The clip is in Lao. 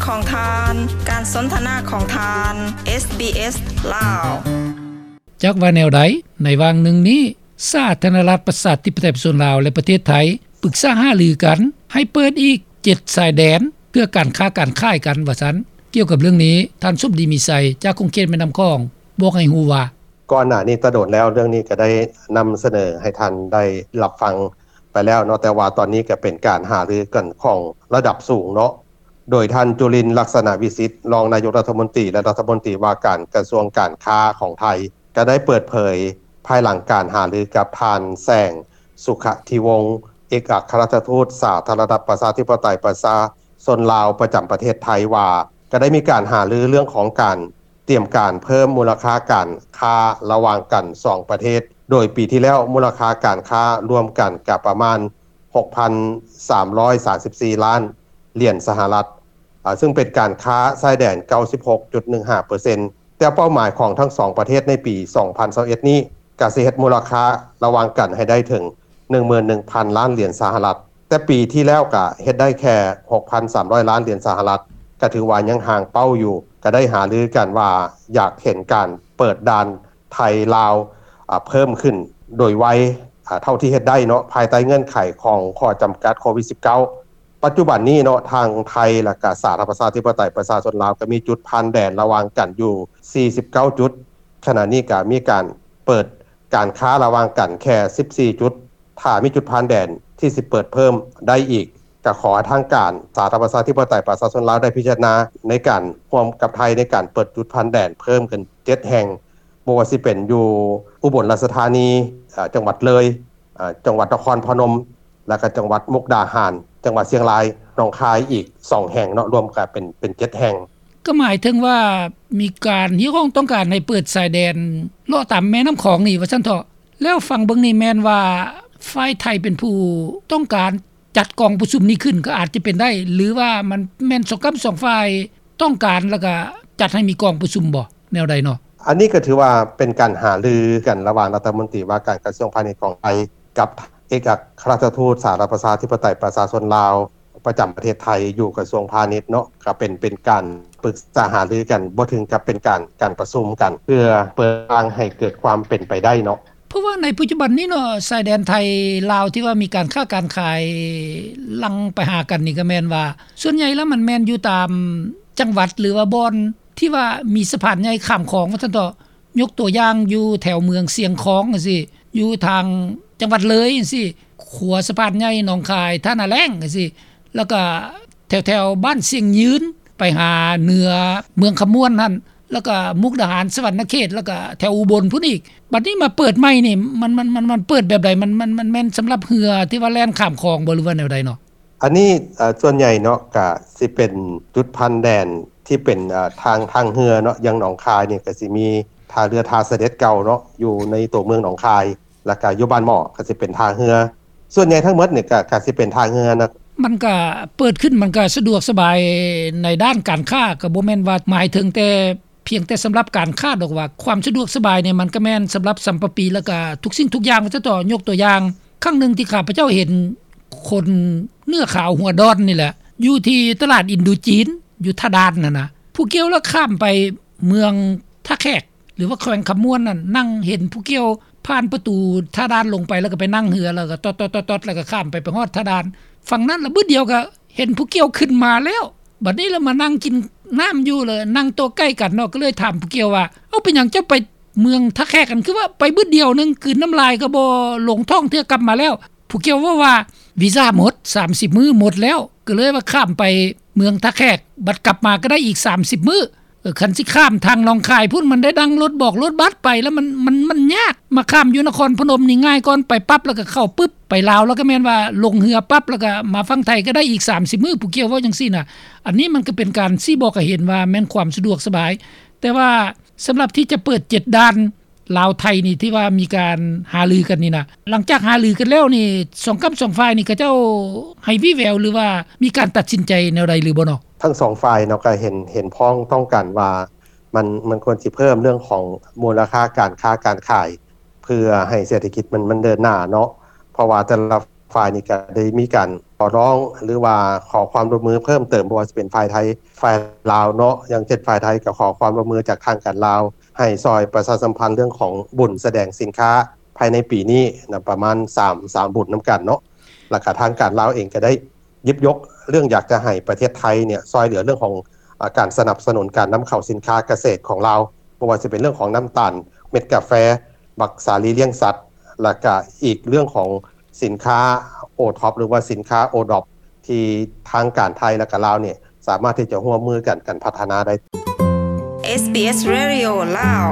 ຂອງທ່ານ, ການສົນທະນາຂອງທ່ານ ເອສບີເອສ ລາວ. ຈັກວ່າແນວໃດ, ໃນຫວ່າງໜຶ່ງນີ້ ສາທາລະນະລັດປະຊາທິປະໄຕປະຊາຊົນລາວ ແລະ ປະເທດໄທ ປຶກສາຫາລືກັນໃຫ້ເປີດອີກເຈັດຊາຍແດນ ເພື່ອການຄ້າການຂາຍກັນ ວ່າຊັ້ນ. ກ່ຽວກັບເລື່ອງນີ້, ທ່ານ ສົມດີ ມີໄຊ ຈາກຂົງເຂດແມ່ນ້ຳຂອງ ບອກໃຫ້ຮູ້ວ່າ: ກ່ອນໜ້ານີ້ແຕ່ດົນແລ້ວ ເລື່ອງນີ້ກໍໄດ້ນຳສະເໜີໃຫ້ທ່ານໄດ້ຮັບຟັງໄປແລ້ວເນາະ, ແຕ່ວ່າຕອນນີ້ກໍເປັນການຫາລືກັນຂອງລະດັບສູງເນາະ, ໂດຍທ່ານ ຈຸລິນ ລັກສະນະວິສິດ ຮອງນາຍົກລັດຖະມົນຕີ ແລະ ລັດຖະມົນຕີວ່າການກະຊວງການຄ້າຂອງໄທ ກໍໄດ້ເປີດເຜີຍພາຍຫຼັງການຫາລືກັບທ່ານ ແສງ ສຸຂະທິວົງ ເອກອັກຄະລັດຖະທູດສາທາລະນະລັດປະຊາທິປະໄຕປະຊາຊົນລາວປະຈຳປະເທດໄທວ່າ ກໍໄດ້ມີການຫາລືເລື່ອງຂອງການ ຕຽມການເພີ່ມມູນລະຄ່າການຄ້າລະຫວ່າງກັນສອງປະເທດ, ໂດຍປີທີ່ແລ້ວມູນລະຄ່າການຄ້າລວມກັນກະປະມານຫົກພັນສາມຮ້ອຍສາມສິບສີ່ລ້ານຫຼຽນສະຫະລັດ, ອາ, ຊຶ່ງເປັນການຄ້າຊາຍແດນເກົ້າສິບຫົກຈຸດໜຶ່ງຫ້າເປີເຊັນ, ແຕ່ເປົ້າໝາຍຂອງທັງສອງປະເທດໃນປີສອງພັນຊາວເອັດນີ້ ກະຊິເຮັດມູນລະຄ່າລະຫວ່າງກັນໃຫ້ໄດ້ເຖິງໜຶ່ງໝື່ນໜຶ່ງພັນລ້ານຫຼຽນສະຫະລັດ. ແຕ່ປີທີ່ແລ້ວກະເຮັດໄດ້ແຄ່ຫົກພັນສາມຮ້ອຍລ້ານຫຼຽນສະຫະລັດ, ກະຖືວ່າຍັງຫ່າງເປົ້າຢູ່, ກະໄດ້ຫາລືກັນວ່າຢາກເຫັນການເປີດດ່ານໄທລາວ ອາ ເພີ່ມຂຶ້ນໂດຍໄວ ອາ ເທົ່າທີ່ເຮັດໄດ້ເນາະ, ພາຍໃຕ້ເງື່ອນໄຂຂອງຂໍ້ຈຳກັດໂຄວິດສິບເກົ້າ. ປັດຈຸບັນນີ້ເນາະ ທາງໄທ ແລະກະສາທາລະນະລັດປະຊາທິປະໄຕປະຊາຊົນລາວ ກະມີຈຸດຜ່ານແດນລະຫວ່າງກັນຢູ່ສີ່ສິບເກົ້າຈຸດ, ຂະນະນີ້ກະມີການເປີດ ການຄ້າລະຫວ່າງກັນແຄ່ສິບສີ່ຈຸດ, ຖ້າມີຈຸດຜ່ານແດນທີ່ຊິເປີດເພີ່ມໄດ້ອີກ, ກະຂໍໃຫ້ທາງການສາທາລະນະລັດປະຊາທິປະໄຕປະຊາຊົນລາວໄດ້ພິຈາລະນາໃນການຮ່ວມກັບໄທໃນການເປີດຈຸດຜ່ານແດນເພີ່ມຂຶ້ນເຈັດແຫ່ງ, ບໍ່ວ່າຊິເປັນຢູ່ອຸບົນລາຊະທານີ, ເອີ່ ຈັງຫວັດເລີຍ, ເອີ່ ຈັງຫວັດນະຄອນພະນົມ, ແລ້ວກະຈັງຫວັດມຸກດາຫານ, ຈັງຫວັດຊຽງລາຍ, ໜອງຄາຍອີກສອງແຫ່ງເນາະ, ລວມກະເປັນ ເປັນເຈັດແຫ່ງ. ກໍໝາຍເຖິງວ່າມີການຮຽກຮ້ອງຕ້ອງການໃຫ້ເປີດຊາຍແດນເລາະຕາມແມ່ນ້ຳຂອງນີ້ວ່າຊັ້ນເຖາະ. ແລ້ວຟັງເບິ່ງນີ້ແມ່ນວ່າຝ່າຍໄທເປັນຜູ້ຕ້ອງການຈັດກອງປະຊຸມນີ້ຂຶ້ນກໍອາດຈະເປັນໄດ້ ຫຼືວ່າມັນແມ່ນສອງກ້ຳສອງຝ່າຍຕ້ອງການ ແລ້ວກໍຈັດໃຫ້ມີກອງປະຊຸມບໍ່ ແນວໃດເນາະ? ອັນນີ້ກໍຖືວ່າເປັນການຫາລືກັນລະຫວ່າງລັດຖະມົນຕີວ່າການກະຊວງພານິດຂອງໄທ ກັບເອກອັກຄະລັດຖະທູດສາທາລະນະລັດປະຊາທິປະໄຕປະຊາຊົນລາວ ປະຈຳປະເທດໄທຢູ່ກະຊວງພານິດເນາະ, ກໍເປັນ ເປັນການປຶກສາຫາລືກັນ, ບໍ່ເຖິງກັບເປັນການ ການປະຊຸມກັນ ເພື່ອເປີດທາງໃຫ້ເກີດຄວາມເປັນໄປໄດ້ເນາະ. ເພາະວ່າໃນປັດຈຸບັນນີ້ເນາະ ຊາຍແດນໄທລາວທີ່ວ່າມີການຄ້າການຂາຍຫຼັ່ງໄປຫາກັນນີ້ ກໍແມ່ນວ່າສ່ວນໃຫຍ່ແລ້ວມັນແມ່ນຢູ່ຕາມຈັງຫວັດ ຫຼືວ່າບ່ອນທີ່ວ່າມີສະພານໃຫຍ່ຂ້າມຂອງວ່າຊັ້ນເຖາະ. ຍົກຕົວຢ່າງຢູ່ແຖວເມືອງຊຽງຂອງຈັ່ງຊີ້, ຢູ່ທາງຈັງຫວັດເລີຍຈັ່ງຊີ້, ຂົວສະພານໃຫຍ່ໜອງຄາຍ ທ່ານາແລ້ງຈັ່ງຊີ້, ແລ້ວກະແຖວໆບ້ານຊຽງຍືນ ໄປຫາເໜືອເມືອງຄຳມ່ວນຫັ້ນ, ແລ້ວກະມຸກດາຫານ ສະຫວັນນະເຂດ, ແລ້ວກະແຖວອຸບົນພຸ້ນອີກ. ບັດນີ້ມາເປີດໃໝ່ນີ້ ມັນ ມັນ ມັນ ມັນເປີດແບບໃດ? ມັນ ມັນ ມັນແມ່ນສຳລັບເຮືອທີ່ວ່າແລ່ນຂ້າມຂອງບໍ່ ຫຼືວ່າແນວໃດເນາະ? ອັນນີ້ ເອີ່ ສ່ວນໃຫຍ່ເນາະ ກະຊິເປັນຈຸດຜ່ານແດນທີ່ເປັນ ເອີ່ ທາງ ທາງເຮືອເນາະ, ຢ່າງໜອງຄາຍນີ້ກະຊິມີທ່າເຮືອທ່າສະເດັດເກົ່າເນາະ ຢູ່ໃນຕົວເມືອງໜອງຄາຍ, ແລ້ວກະຢູ່ບ້ານໝໍ້ກະຊິເປັນທ່າເຮືອ. ສ່ວນໃຫຍ່ທັງໝົດນີ້ກະ ກະຊິເປັນທ່າເຮືອນະ. ມັນກະເປີດຂຶ້ນ ມັນກະສະດວກສະບາຍໃນດ້ານການຄ້າ, ກະບໍ່ແມ່ນວ່າໝາຍເຖິງແຕ່ ພຽງແຕ່ສຳລັບການຄ້າດອກວ່າ ຄວາມສະດວກສະບາຍນີ້ ມັນກະແມ່ນສຳລັບສຳປະປີ ແລ້ວກະທຸກສິ່ງທຸກຢ່າງວ່າຊັ້ນເຖາະ. ຍົກຕົວຢ່າງ ຄັ້ງໜຶ່ງທີ່ຂ້າພະເຈົ້າເຫັນຄົນເນື້ອຂາວຫົວດອນນີ້ແຫຼະ ຢູ່ທີ່ຕະຫຼາດອິນໂດຈີນ ຢູ່ທ່າດ່ານຫັ້ນນະ, ຜູ້ກ່ຽວລະຂ້າມໄປເມືອງທ່າແຂກ ຫຼືວ່າແຂວງຄຳມ່ວນນັ້ນ, ນັ່ງເຫັນຜູ້ກ່ຽວຜ່ານປະຕູທ່າດ່ານລົງໄປ ແລ້ວກະໄປນັ່ງເຮືອ ແລ້ວກະຕອດໆໆໆ ແລ້ວກະຂ້າມໄປ ໄປຮອດທ່າດ່ານຝັ່ງນັ້ນ ລະບຶດດຽວກະ ເຫັນຜູ້ກ່ຽວຂຶ້ນມາແລ້ວ, ບັດນີ້ລະມານັ່ງກິນນ້ຳຢູ່ ລະນັ່ງໂຕະໃກ້ກັນເນາະ, ກໍເລີຍຖາມຜູ້ກ່ຽວວ່າ ເອົ້າ ເປັນຫຍັງເຈົ້າໄປເມືອງທ່າແຂກຫັ້ນ ຄືວ່າໄປບຶດດຽວໜຶ່ງ ກືນນ້ຳລາຍກໍບໍ່ລົງທ້ອງເທື່ອ ກັບມາແລ້ວ. ຜູ້ກ່ຽວເວົ້າວ່າ ວີຊາໝົດ ສາມສິບມື້ໝົດແລ້ວ, ກໍເລີຍວ່າຂ້າມໄປເມືອງທ່າແຂກ ບັດກັບມາກໍໄດ້ອີກສາມສິບມື້. ເອີ ຄັນຊິຂ້າມທາງໜອງຄາຍພຸ້ນ ມັນໄດ້ນັ່ງລົດບອກລົດບັສໄປ ລະມັນ ມັນ ມັນຍາກ. ມາຂ້າມຢູ່ນະຄອນພະນົມນີ້ງ່າຍກ່ອນ, ໄປປັບລະກະເຂົ້າປຶບ ໄປລາວລະກະແມ່ນວ່າລົງເຮືອປັບ ລະກະມາຝັ່ງໄທກະໄດ້ອີກສາມສິບມື້, ຜູ້ກ່ຽວເວົ້າຈັ່ງຊີ້ນະ. ອັນນີ້ມັນກະເປັນການຊີ້ບອກໃຫ້ເຫັນວ່າແມ່ນຄວາມສະດວກສະບາຍ, ແຕ່ວ່າສຳລັບທີ່ຈະເປີດເຈັດດ່ານ ລາວໄທນີ້ ທີ່ວ່າມີການຫາລືກັນນີ້ນະ, ຫຼັງຈາກຫາລືກັນແລ້ວນີ້ ສອງກ້ຳສອງຝ່າຍນີ້ ເຂົາເຈົ້າໃຫ້ວີແວວ ຫຼືວ່າມີການຕັດສິນໃຈແນວໃດຫຼືບໍ່ເນາະ? ທັງສອງຝ່າຍເນາະ ກໍເຫັນ ເຫັນພ້ອງຕ້ອງກັນວ່າ ມັນ ມັນຄວນຊິເພີ່ມເລື່ອງຂອງມູນລະຄ່າການຄ້າການຂາຍ ເພື່ອໃຫ້ເສດຖະກິດມັນ ມັນເດີນໜ້າເນາະ, ເພາະວ່າແຕ່ລະຝ່າຍນີ້ກໍໄດ້ມີການ ຂໍຮ້ອງ ຫຼືວ່າຂໍຄວາມຮ່ວມມືເພີ່ມເຕີມ ບໍ່ວ່າຈະເປັນຝ່າຍໄທ ຝ່າຍລາວເນາະ ຢ່າງເຊັ່ນຝ່າຍໄທກໍຂໍຄວາມຮ່ວມມືຈາກທາງການລາວ ໃຫ້ຊ່ອຍປະຊາສຳພັນເລື່ອງຂອງບຸນສະແດງສິນຄ້າ ພາຍໃນປີນີ້ນະ ປະມານສາມ ສາມບຸນນຳກັນເນາະ ແລ້ວກໍທາງການລາວເອງກໍໄດ້ ຍິບຍົກເລື່ອງຢາກຈະໃຫ້ປະເທດໄທເນ່ຍຊ່ອຍເຫຼືອເລື່ອງຂອງ ອາ ການສະໜັບສະໜູນການນຳເຂົ້າສິນຄ້າກະເສດຂອງລາວ ບໍ່ວ່າຈະເປັນເລື່ອງຂອງນ້ຳຕານເມັດກາແຟ ບັກສາລີລ້ຽງສັດ ແລ້ວກະອີກເລື່ອງຂອງສິນຄ້າ OTOP ຫຼືວ່າສິນຄ້າ ODOP ທີ່ທາງການໄທ ແລ້ວກະລາວເນ່ຍ ສາມາດທີ່ຈະຮ່ວມມືກັນ ກັນພັດທະນາໄດ້. ເອສບີເອສ Radio ລາວ